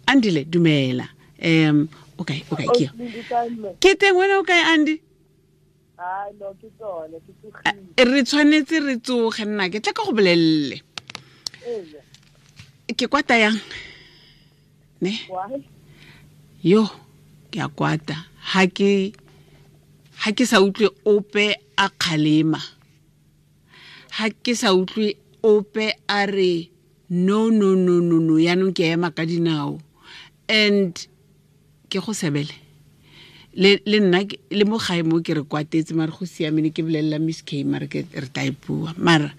Andile, dumela. Okay, okay, ke teng wena o kae, Andy? No, ke tsone, ke tsogile. Re tshwanetse re tsoge, nna ke tla ka go bolelele. Ke kwata yang? Ne? Yo, ke a kwata. Ha ke sa utlwe ope a kgalema. Ha ke sa utlwe ope a re no no no no no, yaanong ke ema ka dinao. And ke go sebele le nna le mo gae mo ke re kwatetse, mare go siamene ke bolelela Miss K, mare ke re tla e bua, mara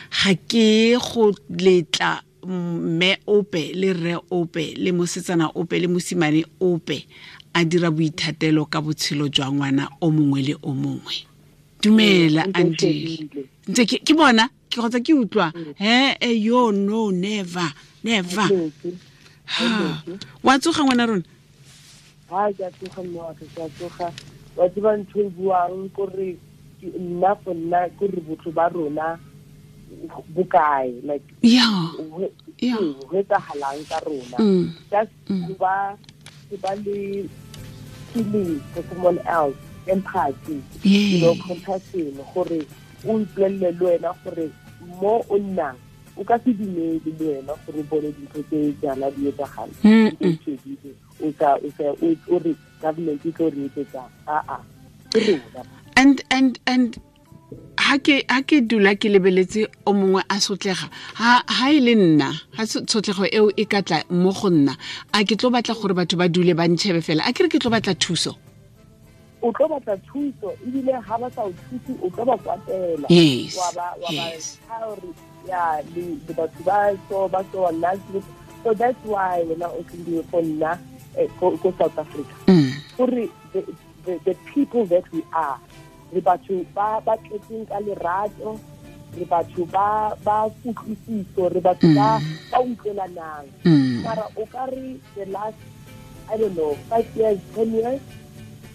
ga ke go letla mme ope le rre ope le mosetsana ope le mosimane ope a dira boithatelo ka botshelo jwa ngwana o mongwe le o mongwe. Dumela Andile, ntse ke bona ke kgotsa ke utlwa he yo no never never. Ha wa tsoga ngwana rona? Ha ke tsoga mme wa ke tsoga, wa tseba ntho e buang gore nna for nna gore botho ba rona bokae, like yeah yeah, go etsahalang ka rona, just ba le feeling for someone else, empathy, you know, compassion, gore o ipolelele le wena gore mo o nnang o ka se dumele le wena gore o bone dintho tse jaana di etsagala, o sa o re government e tlo re etsetsang, aa ke rona. And ha ke dula ke lebeletse o mongwe a sotlega, ha e le nna, ha tshotlego eo e ka tla mo go nna, a ke tlo batla gore batho ba dule ba ntšhebe fela, a ke re ke tlo batla thuso. O tlo batla thuso, ebile ha ba sa o thuse o tlo ba kwatela. Yes. Wa ba gore ya le batho ba so ba so nna. So that's why wena o tlile for nna ko South Africa. Gore the people that we are, re batho ba ba tletseng ka lerato, re batho ba ba kutlwisiso, re batho ba ba utlwelanang. Mara o ka re the last, I don't know, 5 years, 10 years,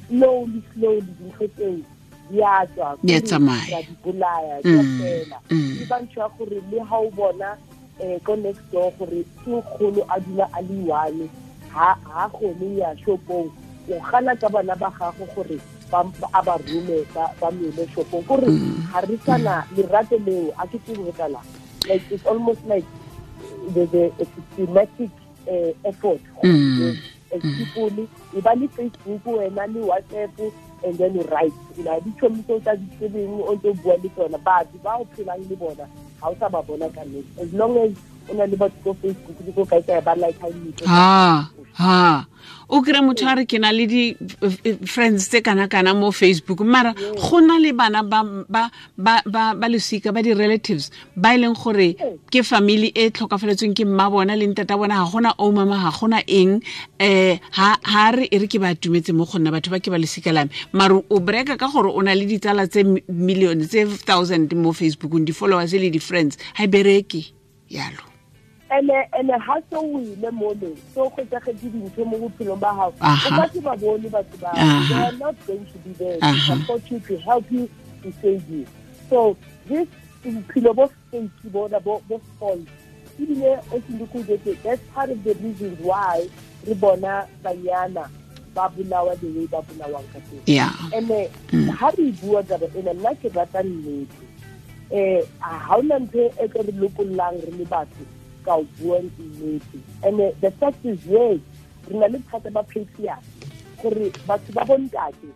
slowly slowly dintho tseo di a tswa, di tsamaya, di bolaya, di fela. Ke ba ntho ya gore le ha o bona ko next door gore ke nkgono a dula a le one, ha gone ya shopong, o gana ka bana ba gago gore a ba rome ba mele shopong, gore ga re sana lerato leo, a ke tsebe go tlala. Like it's almost like the systematic effort. As people, e ba le Facebook wena le WhatsApp, and then you write. You know, di tšhomi tse o tsa di tsebeng o ntse o bua le tsona, batho ba o phelang le bona ga o sa ba bona ka nnete. As long as o na le batho ko Facebook le ko kae kae ba like ha. Ha o kry motho a re ke na le di friends tse kana-kana mo Facebook, mara go na le bana ba losika ba di-relatives ba e leng gore ke family e tlhokafaletsweng ke mma bona le ntata bona, ga gona o mama, ga gona eng, ha re e re ke ba atumetse mo go nna batho ba ke ba losika la me, mara o breka ka gore o na le ditsala tse million tse thousand mo Facebookong, di-followers le di-friends, ha e bereke yalo. Ene ha so o ile mole, so go tsagetse dintho mo bophelong ba gago, o ka se ba bone batho ba, they are not going to be there to support you, to help you, to save you. So this bophelo bo fake bona bo false, ebile o sindikujetse, that's part of the reasons why re bona banyana ba bolawa the way ba bolawang ka teng. Ene ha re bua taba ena, nna ke rata nnete. Ha ona ntho e tlo re lokollang re le batho ka o bua nnete. And the fact is, yes, re na le bothata ba patriarchy, gore batho ba bontate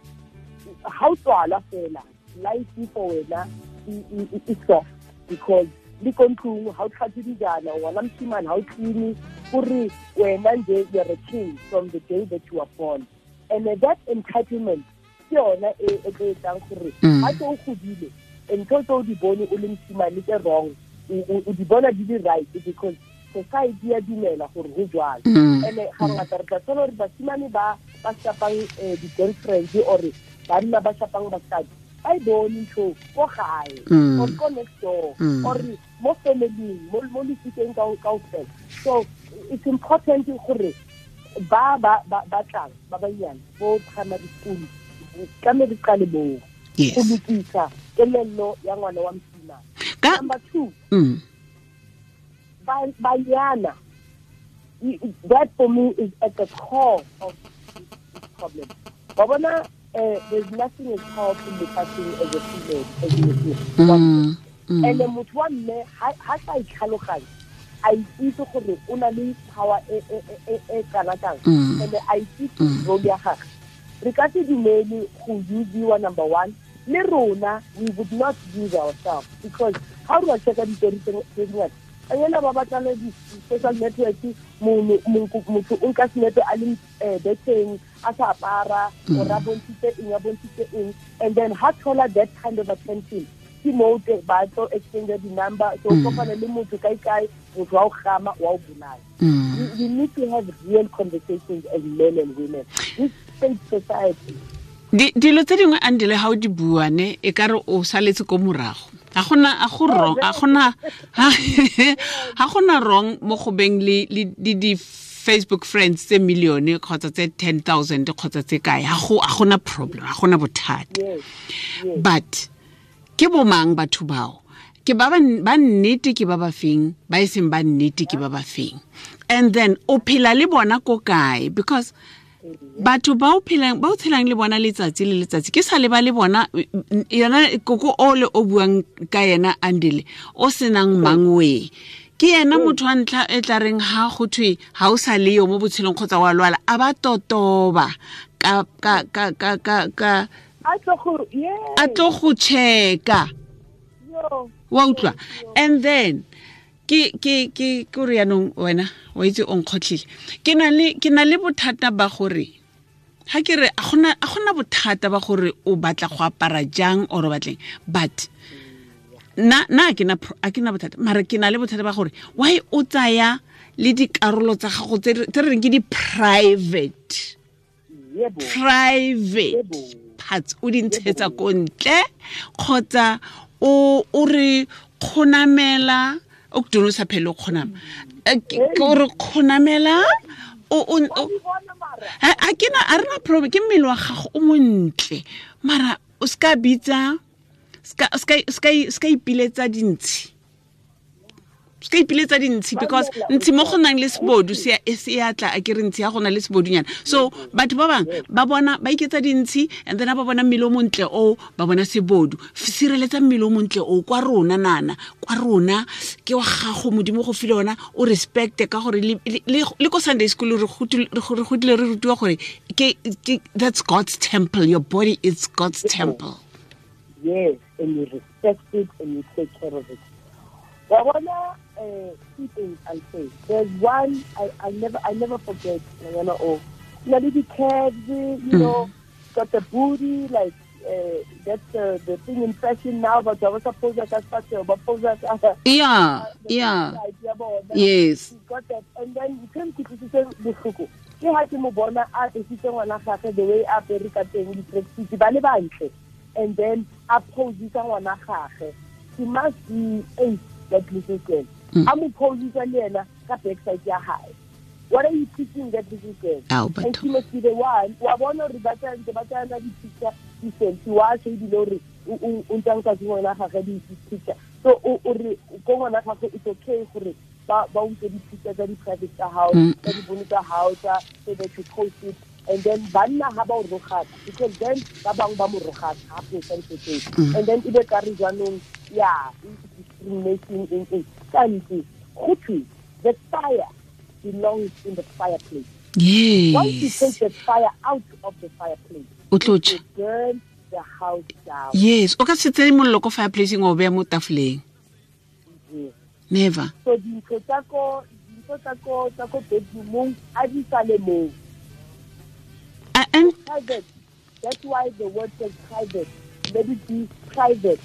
ha o tswala fela life for wena e soft, because le ko ntlong ha o tlhatswe dijana, ngwana moshimane ha o clean, gore wena nje you're a king from the day that you are born. And that entitlement ke yona e tlo etsang gore ha tse o godile ntho tse o di bone o le moshimane tse wrong, o di bona di le right, because society ya dumela gore go jwalo. Ene ga ngata re tla thola gore basimane ba ba shapang di-girlfriends or banna ba shapang basadi, ba e bone ntho ko gae or ko next door or mo family, mo lesikeng kaofela. So it's important gore ba ba ba tlang ba banyane bo primary school tlamehile re qale moo go lokisa kelello ya ngwana wa mosimane. Number 2, banyana That for me is at the core of this problem. Babona, there's nothing as powerful in the lefatsheng as a female, as a female. And the motho wa mme ha sa itlhaloganye, a itse gore o na le power e kana kang, and a itse role ya gagwe. Re ka se dumele go usiwa, number one. Le rona, we would not use ourselves, because how do I check out the dingata? Ayela ba batla di social network, motho o nka senepe a le beteng, a sa apara, or a bontshitse eng, a bontshitse eng, and then ha thola that kind of attention, ke mo ba tlo exchange di number, so kopana le motho kae kae, motho wa o gama, wa o bolaya. We need to have real conversations as men and women. This state society. Dilo tse dingwe Andile ha o di bua ne e ka re o saletse ko morago. A gona a go wrong, a gona ha gona wrong mo go beng le di Facebook friends tse million kgotsa tse 10,000 kgotsa tse kae. Ha go a gona problem, ha gona bothata. But ke bomang batho bao? Ke ba ba nnete ke ba ba feng, ba e seng ba nnete ke ba ba feng. And then o phela le bona ko kae, because batho ba o phelang ba o tshelang le bona letsatsi le letsatsi ke sa le ba le bona yona koko o le o buang ka yena Andile o senang mangwe ke yena motho wa ntlha e tla reng ha go thwe ha o sa le yo mo botshelong kgotsa wa lwala a ba totoba ka ka ka ka ka ka a tlo go checka wa utlwa. And then ke ke ke ke re yanong wena wa itse o nkgotlile ke na le bothata ba gore ha ke re a gona bothata ba gore o batla go apara jang or o batleng, but na ke na bothata, mara ke na le bothata ba gore why o tsaya le dikarolo tsa gago tse re reng ke di private parts o di ntshetsa ko ntle kgotsa o re kgonamela o ke sa phele o kgonama ke re kgonamela o a ke na a rena problem ke mmele wa gago o montle mara o ska bitsa ska ipiletsa dintshi ska ipiletsa dintshi because ntshi mo go nang le sebodu se ya tla a ke re ntshi ya gona le sebodunyana. So batho ba bang ba bona ba iketsa dintshi and then ba bona mmele o montle o ba bona sebodu. Sireletsa mmele o montle o kwa rona nana kwa rona ke wa gago modimo go file ona o respect ka gore le ko Sunday school re godile re rutiwa gore ke that's God's temple, your body is God's temple. Yes, and you respect it and you take care of it. Wabona, two things I'll say. There's one I never forget. You know, the curves, you know, got the booty, like that's the thing in fashion now. But I was supposed to yeah, yes. She got that, and then you came to say the ke ha ke mo bona a esitse ngwana gagwe the way a apere ka teng di-tracksuit ba le bantle, and then a posisa ngwana gagwe. She must be 8, that little girl. A mo posisa le ena ka backside ya hae. What are you teaching that little girl? And she must be the one wa bona re ba tsana di-picture di-selfie wa se ebile ore o ntse nka se ngwana gagwe di-picture. So o re ko ngwana gagwe it's okay gore ba utlwe di-picture tsa di-private tsa hao, tsa dibono tsa hao, tsa so that you post it. And then banna ha ba o rogaka, because then ba bangwe ba mo rogaka ha posta ntho tseo. And then ebe ka re jaanong ya discrimination in kantsi go thwe the fire belongs in the fireplace. Yes. Once you take the fire out of the fireplace, o tlo tjha. It will burn the house down. Yes, o ka se tseye mollo ko fireplaceng o beya mo tafoleng. Yes. Never. So dintho tsa ko bedroomong a di sale moo. And private. That's why the word says private. Let it be private.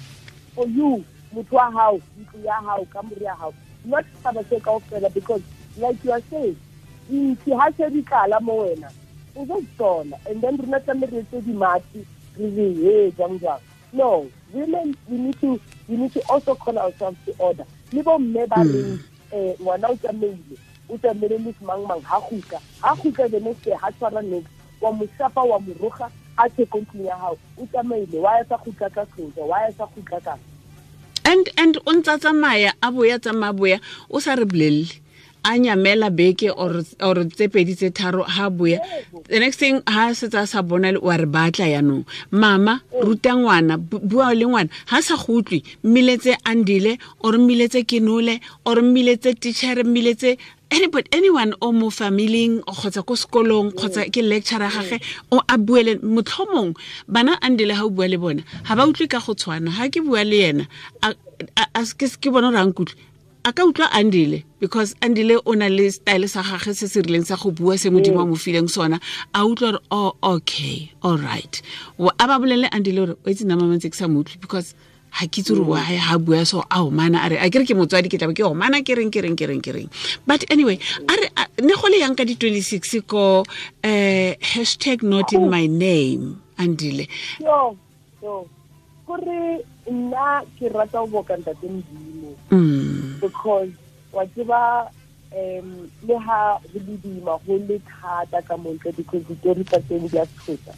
For you, motho wa hao, ntlo ya hao, kamore ya hao. Not setšhaba se kaofela, because like you are saying, ntsi ha se di tlala mo wena, o tlo tsona. And then rona tlamehile re etse dimatsi, re re he jang jang. No, women, we need to also call ourselves to order. Le bo mme ba reng ngwana o tsamaile le mang mang ha gutla the next day ha tshwara next wa mo shapa wa mo roga a tse ko ntlong ya hao o tsamaile wa ya sa gutla ka tloja wa ya sa gutla ka and o ntsa tsamaya a boya tsamaya boya o sa re bolelle a nyamela beke or tse pedi tse tharo ha boya the next thing ha setse a sa bona wa re batla yanong mama ruta ngwana bua le ngwana ha sa go utlwe mmiletse Andile or mmiletse Kenole or mmiletse teacher mmiletse anybody anyone o mo familing kgotsa ko sekolong kgotsa ke lecturer gage o a buele motlhomong bana Andile ha o bua le bona ha ba utlwe ka go tshwana ha ke bua le yena a ke bona gore a nkutlwe a ka utlwa Andile because Andile o na le style sa gagwe se se rileng sa go bua se modimo a mo fileng sona a utlwa gore oh okay all right a ba bolele Andile gore o itse nna mama ntse ke sa mo utlwe because ha ke itse gore why ha bua so a omana a re a kere ke motswadi ke tlabe ke omana ke reng ke reng ke reng ke reng but anyway a re ne go le yang ka di 26 ko hashtag not in my name Andile yo gore nna ke rata go boka ntate Modimo because wa tseba le ha go le boima go le thata ka montle because ditori tsa teng di a tshosa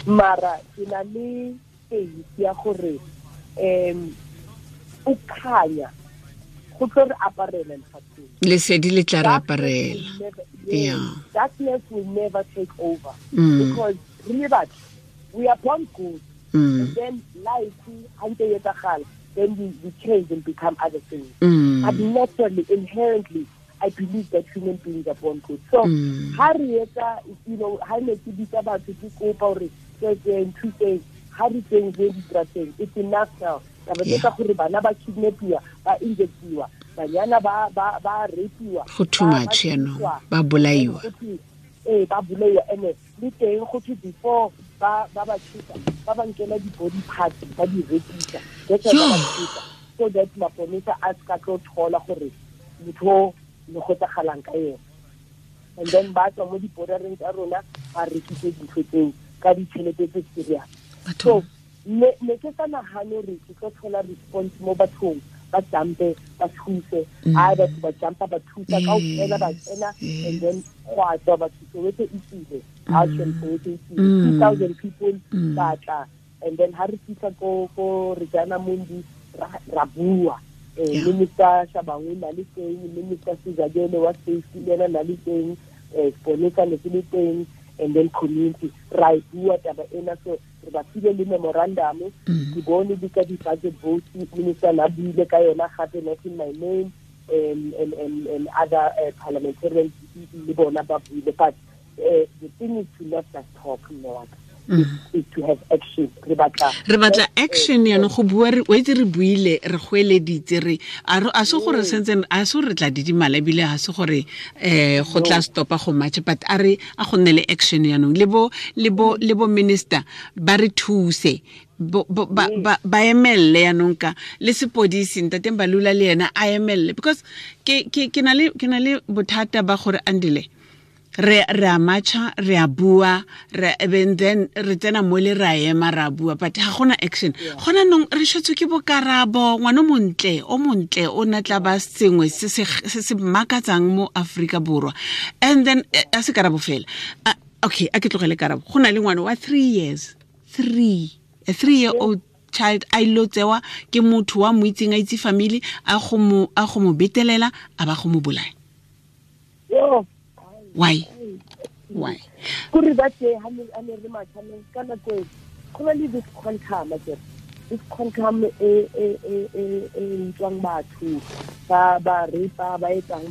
mara ke na le faith ya gore o khanya go tlo re aparela lefatsheng lesedi le tla re aparela. Yeah, darkness will never take over because re batho we are born good and then life then we change and become other things. But naturally, inherently, I believe that human beings are born good. So, you know, it's enough now. Go too much, you know. Ba bolaiwa. Ba bolaiwa ene le teng go thwe before ba ba thusa ba ba nkela di body parts ba di rekisa so that maponesa a ska tlo thola gore motho le go tsagalang ka yena and then ba tswa mo di bordereng tsa rona ba rekise dintho tseo ka ditšhelete tse serious. So ne ke sa nagane re ke tlo thola response mo bathong ba jumpe ba thuse a batho ba jumpa ba thusa ka ofela ba tsena and then go a tswa batho Soweto e tsile a Soweto e tsile 2000 people ba tla and then ha re fitla ko Regina Mundi ra bua Minister Shabangu na le teng, Minister Sizakele wa safety le ena na le teng, Seponesa ne se le teng, and then community ra e bua taba ena. So re ba file le memorandum ke bone di ka di-budget vote minister na buile ka yona gape not in my name and other parliamentarians le bona ba buile, but the thing is to not just talk no is to have action. Re batla action yana go bua re o itse re buile re goeleditse re a se gore sentse a se re tla didimala ebile ha se gore go tla stopa go match, but a re a go nne le action yanong le bo minister ba re thuse ba emelle yanong ka le sepodisi ntate Mbalula le yena a emelle because ke na le bothata ba gore Andile re a matcha re a bua re and then re tsena mo le ra ema ra bua but ha gona action. Gona nong re shetswe ke bokarabo ngwana montle o montle o na tla ba sengwe se se makatsang mo Afrika Borwa and then a se karabo fela. Okay, a ke tlogele karabo. Go na le ngwana wa 3 years a 3-year-old child a ilo tsewa ke motho wa mo itseng a itse family a go mo betelela a ba go mo bolaya. Why? Kuri ba tse ha ne re matha ka nako go na le this quantum akere. This quantum e utlwang batho ba ba rape ba etsang.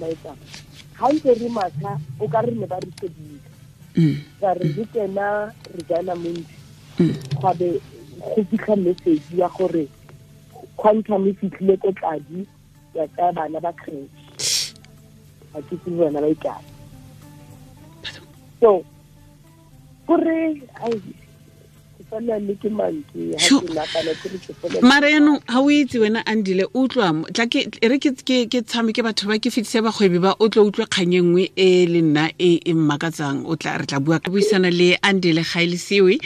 Ha ntse re matha o ka re ne ba re shebile. Ba re re tsena re jana montsi. Gwa be go fitlha message ya gore quantum e fitlhile ko Tladi ya tsaya bana ba crèche. Ha ke tsebe bana ba ikae. So, kore ai ke le ke mantswe ha ke nagana ke re ke fela. Mara yanong ha o itse wena Andile utlwa tla ke re ke tshameke batho ba ke fitse bagwebi ba o tlo utlwe kgang e nngwe e le nna e e mmakatsang o tla re tla bua ka buisana le Andile Gaelisiwe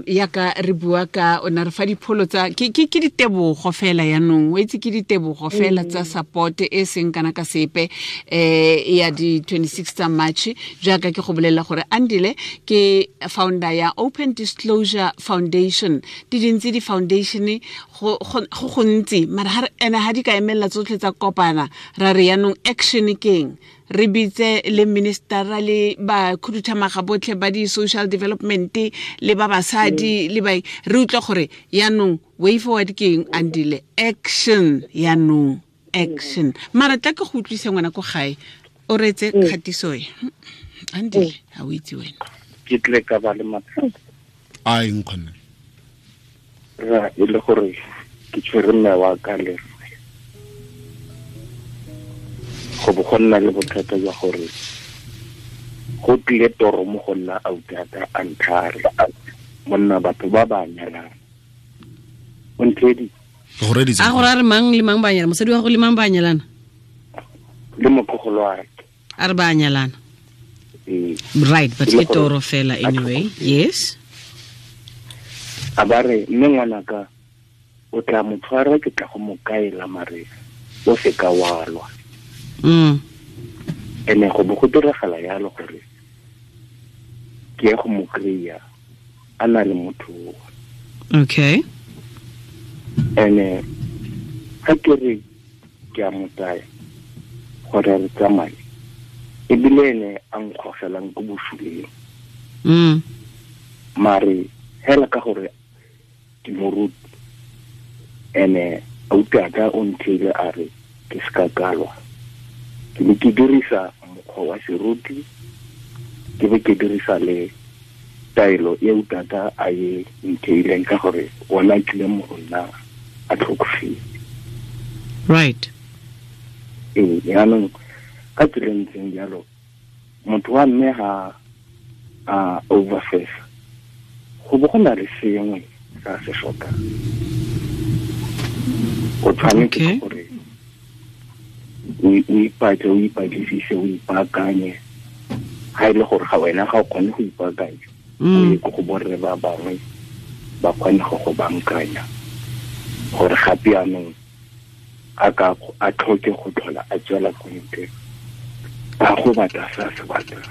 yaka re bua ka o na re fa dipholo tsa ke ditebogo fela yanong o itse ke ditebogo fela tsa support e seng kana ka sepe ya di 26 tsa March jaaka ke go bolela gore Andile ke founder ya Open Disclosure Exposure Foundation. Di dintsi di foundation go gontsi mara ene ha di ka emella tsotlhe tsa kopana ra re yanong action keng re bitse le minister le ba khuduthamaga botlhe ba di social development le ba basadi le ba re utlwa gore yanong way forward keng Andile action yanong action mara tla ke go utlwise ngwana ko gae o reetse kgatiso e Andile ha o itse wena ke tle ka ba le mathata a eng kgonne ra e le gore ke tshwere mme wa ka le go bo go nna le bothata jwa gore go tlile toro mo go nna autata a nthare monna batho ba ba nyalang o nthedi a gore a re mang le mang ba nyalana mosadi wa go le mang ba nyalana le motlogolo wa a re ba nyalana right but ke toro fela anyway yes a ba re mme ngwanaka o tla mo tshwara ke tla go mo kaela mare o se ka wa lwa ene go bo go diragala yalo gore ke ye go mo kry-a a na le motho. Okay. Ene ga ke re ke a mo tsaya gore re tsamaye ebile ene a nkgogelang ko bosuleng. Mare hela ka gore ke moruti ene auta o ntheile a re ke ska kalwa ke be ke dirisa mokgwa wa seruti ke be ke dirisa le taelo e utata a e ntheileng ka gore ona tlile mo go nna a tlhokofetse. Right. Ee, jaanong ka tsela e ntseng jalo motho wa mme ga a overfesa go bo go na le sengwe sa se tlhokang. O tshwanetse gore o ipatle o ipatlisise o ipaakanye ga e le gore ga wena ga o kgone go ipaakanya o ye ko go borre ba bangwe ba kgone go go bankanya gore gape jaanong a ka a tlhoke go tlhola a tswela ko ntle a go batla sa se batlang.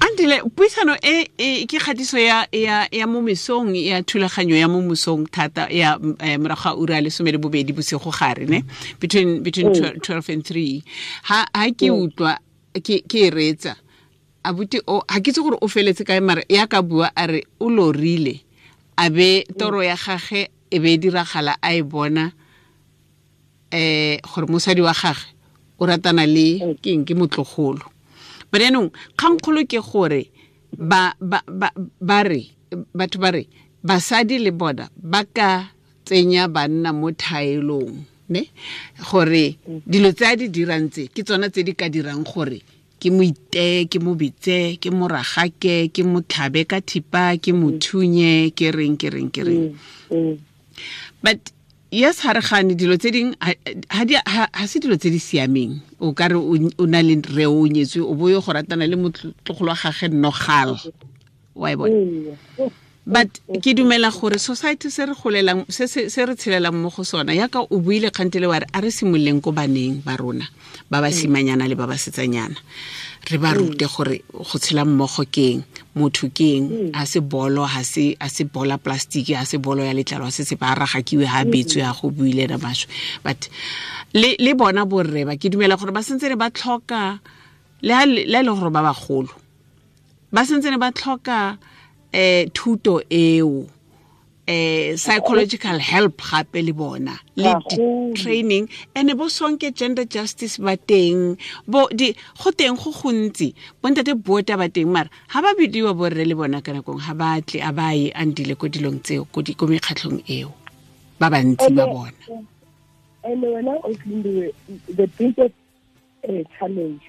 Andile puisano e ke kgatiso ya mo mesong ya thulaganyo ya mo mosong thata ya morago ga ura 12 bosigo gare ne between 12 and 3 ha ke utlwa ke e reetsa abuti o ha ke itse gore o feletse kae mare ya ka bua a re o lorile a be toro ya gage e be diragala a e bona gore mosadi wa gage o ratana le keng ke motlogolo. But yaanong kgangkgolo ke gore ba re batho ba re basadi le bona ba ka tsenya banna mo thaelong ne gore dilo tse a di dirang tse ke tsona tse di ka dirang gore ke mo iteye ke mo bitse ke mo ragake ke mo tlhabe ka thipa ke mo thunye ke reng ke reng ke reng. But yes ha re gane dilo tse ding ha se dilo tse di siameng o ka re o na le re o nyetswe o boyo go ratana le motlogolo wa gage nogal wa e bona. But ke dumela gore society se re golelang se re tshelelang mo go sona yaka o buile kgantele wa re a re simololeng ko baneng ba rona ba ba simanyana le ba ba setsanyana re ba rute gore go tshela mmogo keng motho keng a se bolo ha se a se bola plastic a se bolo ya letlalo a se se ba ragakiwe ha betswe ya go buile na basho. But le bona borre ba ke dumela gore ba sentse ba tlhoka le ha le gore ba bagolo ba sentse ba tlhoka thuto eo psychological help gape le bona le training ene bo sonke gender justice ba teng bo di go teng go gontsi bontate bota ba teng mara ha ba bidiwa borre le bona kana kong ha ba tle a ba ye Andile ko dilong tseo ko di ko mekgatlhong eo ba bantsi ba bona. Ene wena o tlinde the biggest challenge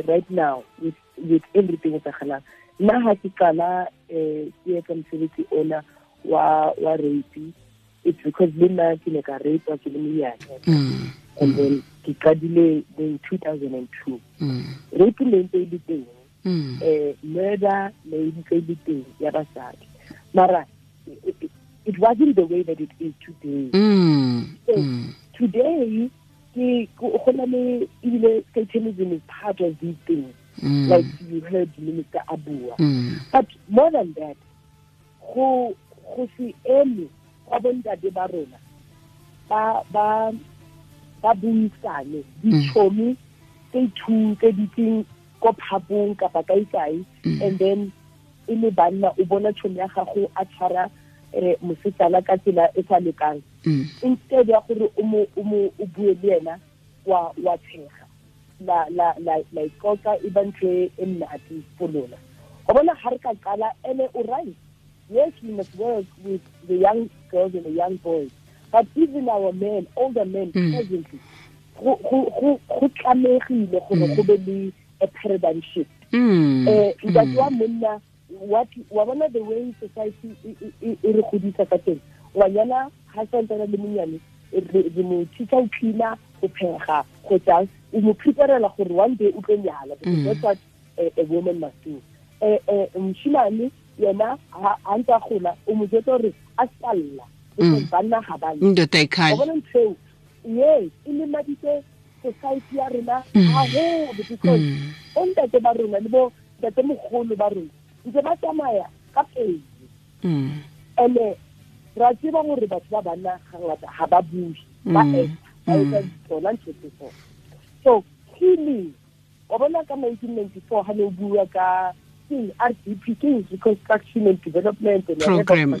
right now with everything etsahalang nna ha ke qala ke etsa mosebetsi ona wa rape, it's because le nna ke ne ka rape ke le monyane and then ke qadile in 2002. Rape ne ntse e le teng, murder ne ntse e le teng ya basadi mara it wasn't the way that it is today. So today ke go na le ebile satanism is part of these things. Like you heard Minister Abua. But more than that, go se eme gwa bontate ba rona ba buisane ditšhomi tse two tse ditseng ko phapong kapa kae, and then e le banna o bona tšhomi ya gago a tshwara mosetsana ka tsela e sa lokang, instead ya gore o bue le ena wa tshega la la ikoka e ba ntho e nnate for lona. O bona ha re ka qala ene o right. Yes, we must work with the young girls and the young boys, but even our men, older men presently, go tlamegile gore go be le a paradigm shift. Ntate wa monna, what wa bona the way society e re godisa ka teng, ngwanyana ha santsana le monyane re mo thusa ho cleaner, go phega, go tsang, o mo preparela gore one day o tlo nyala, because that's what a woman must do. Moshimane yena ha ntse a gola o mo jwetsa gore a salla, because banna ga ba ndoda ikhaya. O bona ntho yes, e lemaditse society ya rona haholo, because o ntate ba rona le bo ntate mogolo ba rona ntse ba tsamaya ka pele. Ene ra tseba gore batho ba banna ga ngata ga ba bue, ba etsa tsona ntho tse so. So healing, o bona ka 1994 ha ne o bua ka RDP, Reconstruction and Development and Program.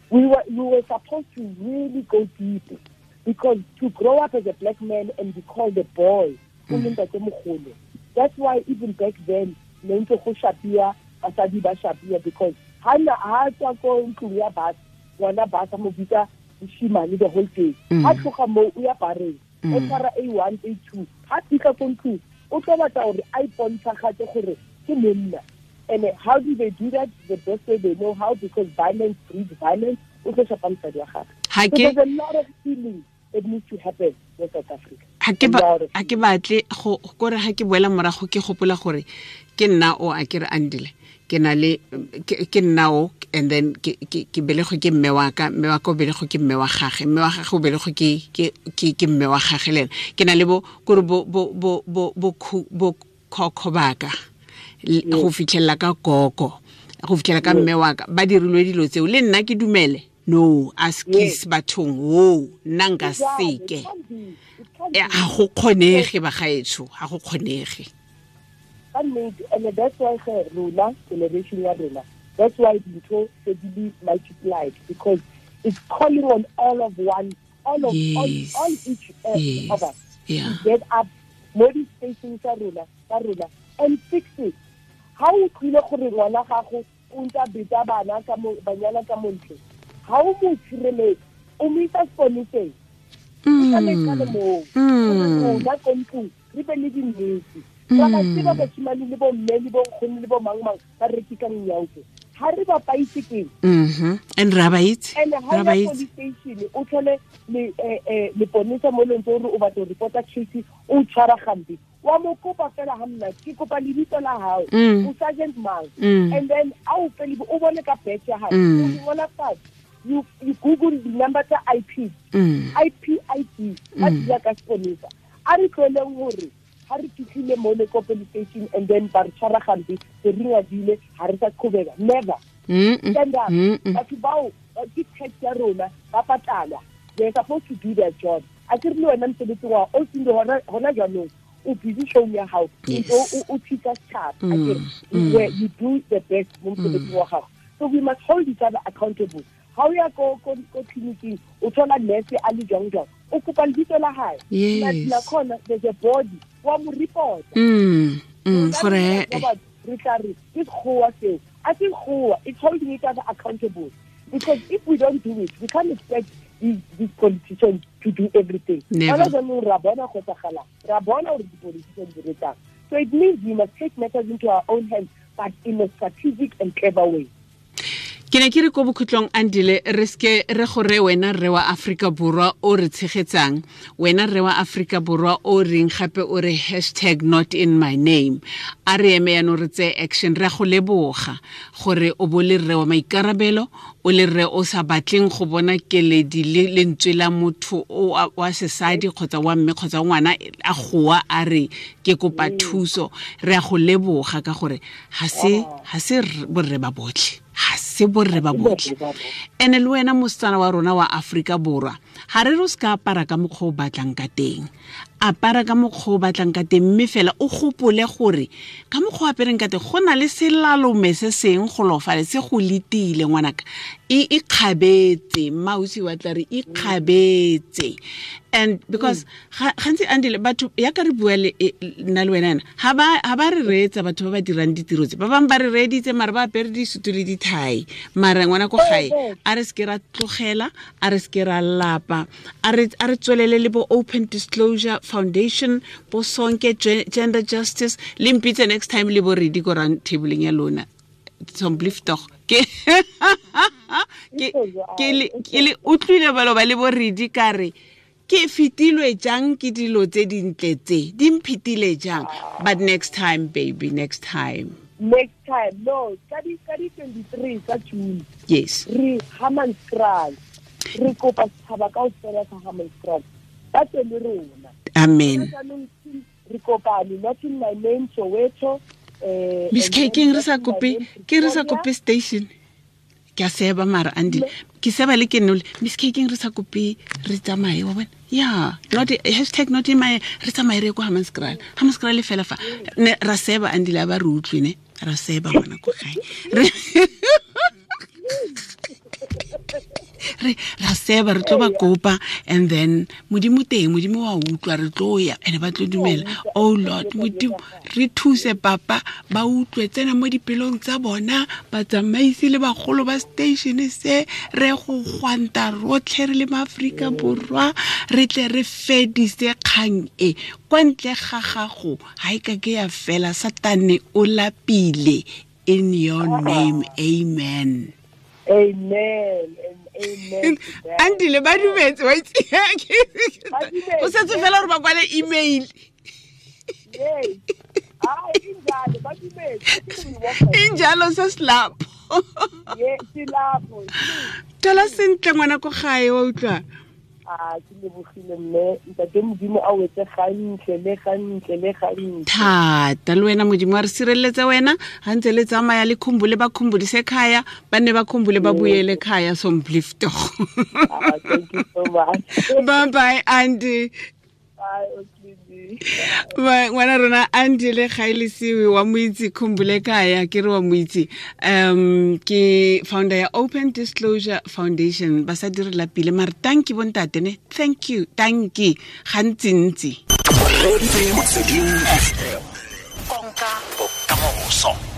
We were supposed to really go deep, because to grow up as a black man and be called a boy, that's why even back then, ne ntse go shapia, basadi ba shapia, because ha tswa ko ntlong ya batho, ngwana ba sa mo bitsa moshimane the whole day. Ha tloga mo o ya bareng, o tshwara A1, A2, ha fitlha ko ntlong, o tlo batla gore a ipontshagate gore ke monna. And how do they do that? The best way they know how, because violence breeds violence. O tlo shapa mosadi wa gagwe. So there's a lot of healing that needs to happen in South Africa. Ha ke batle go kore ha ke boela morago ke gopola gore ke nna o a ke re Andile, ke na le ke nna o, and then ke belegwe ke mme wa ka, mme wa ka o belegwe ke mme wa gagwe, mme wa gagwe o belegwe ke mme wa gagwe le ena. Ke na le bo kore bo bo bo bo bo khokho baka go fitlhela ka koko, go fitlhela ka mme wa ka, ba dirilwe dilo tseo le nna ke dumele. No, askis bathong wo nna nka seke. Ha go kgonege bagaetsho, ha go kgonege. And that's why rona generation ya rona, that's why dintho se di multiplied, because it's calling on all of one, all of yes. all each of us to get up mo di-spacing tsa rona and fix it. Ha o tlile gore ngwana gago o ntse a beta bana ka mo banyana ka montle, ha o mo tshireletse, o mo isa seponeseng, o tla moo, rona ko ntlong re be le dinnete. Ra ba tseba bashimane le bo mme le bo nkgono le bo mang mang ba rekisang nyaope, ha re ba paitse keng? And ra ba itse, and ha ya police station o tlhole le leponesa mo leng gore o batla go reporta case, o tshwara gampe, wa mo kopa fela ha nna ke kopa lebitso la hao, o sergeant mang, and then a o fele o bone ka batch ya hao, o ngola fatshe, you google the number tsa IP, IP ID, ba tla ka seponesa. A re tloleng hore ha re fitlhile mo le ko police station and then ba re tshwara gampe, re ringadile, ha re sa qhobeka. Never. Stand up. Batho bao ke tax ya rona, ba patalwa. They're supposed to do their job. A ke re le wena mosebetsi wa o sinde hona jwanong, o busy showing ya hao, o thusa setjhaba. A ke re where you do the best mo mosebetsing wa gago. So we must hold each other accountable. Ha o ya ko clinicing, o thola nurse a le jwang jwang, o kopa lebitso la hae. La khona, there's a body wa mo report. Gore re tla re ke sekgowa seo, a se sekgowa, it's holding each other accountable, because if we don't do it, we can't expect these politicians to do everything. Never. Ra bona go tsagala, ra bona gore di-politicians di retsang. So it means we must take matters into our own hands, but in a strategic and clever way. Ke ne ke re ko bokhutlong, Andile, re seke re gore wena rre wa Aforika Borwa o re tshegetsang, wena rre wa Aforika Borwa o reng gape o re hashtag not in my name, a re eme yaanong re tseye action. Re a go leboga gore o bo le rre wa maikarabelo, o le rre o sa batleng go bona keledi le lentswe la motho wa sesadi kgotsa wa mme kgotsa ngwana a goa a re ke kopa thuso. Re a go leboga ka gore ga se borre ba botlhe, ga se borre ba botlhe. Ene le wena mosetsana wa rona wa Aforika Borwa, ga re re o se ka apara ka mokgwa o batlang ka teng, apara ka mokgwa o batlang ka teng, mme fela o gopole gore ka mokgwa o apereng ka teng go na le selalome se seng golofale se go letile ngwanaka. E ikgabetse, mmausi wa tla re ikgabetse. And because gantsi Andile, batho ya ka re bua le nna le wena yana, ga ba re reetsa batho ba ba dirang ditiro tse, ba bangwe ba re reeditse mare ba apere disutu le dithai, mara ngwana ko gae a re seke ra tlogela, a re seke ra lapa, a re tswelele le bo Open Disclosure Foundation, bo Sonke Gender Justice, le mpitse next time le bo redi ko round tableng ya lona. Somblief tog ke le utlwile balo ba le bo redi ka re ke fetilwe jang ke dilo tse dintle tse di mphetile jang. But next time, baby, next time. Next time, no, ka di 23 tsa June. Yes. Re Hammanskraal. Re kopa setšhaba kaofela sa Hammanskraal. Ba tle le rona. Amen. Re kopane, not in my name, Soweto. Miss K, ke re sa kope, ke re sa kope station. Ke a seba mara Andile. Ke seba le ke nole. Miss K, ke re sa kope re tsamaye wa bona. Yeah, not hashtag not in my re tsamaye re ko Hammanskraal. Hammanskraal le fela fa. Ne ra seba Andile ba re utlwe ne. Ra seba ngwana ko gae. Re ra seba re tlo ba kopa, and then Modimo teng, Modimo wa utlwa, re tlo ya ene ba tlo dumela. Oh Lord, Modimo re thuse papa ba utlwe, tsena mo dipelong tsa bona, batsamaisi le bagolo ba station se, re go gwanta rotlhe re le maAforika Borwa, re tle re fedise kgang e kwa ntle ga gago ga e ka ke ya fela. Satane o lapile. In your name, amen. Amen and amen. Andile ba dumetse wa itse. O setse fela gore ba kwale email. Yes. Injalo ba dumetse. Injalo se slap. Yes, silapho. Thola sentle ngwana ko gae wa utlwa. A ke lebogile mme, ntate Modimo a wetse gantle le gantle le gantle. Thata le wena Modimo a re sireletse wena, ha ntse le tsamaya le khumbule ba khumbulise khaya, ba ne ba khumbule ba buyele khaya somblifto. Thank you so much. Bye bye Andy. Bye. Ngwana rona Andile Gaelesiwe wa moitse khumbule kaya, ke re wa moitse, ke founder ya Open Disclosure Foundation. Ba sa dire lapile mare thank you bontate ne, thank you, thank you gantsintsi. Konka bokamoso.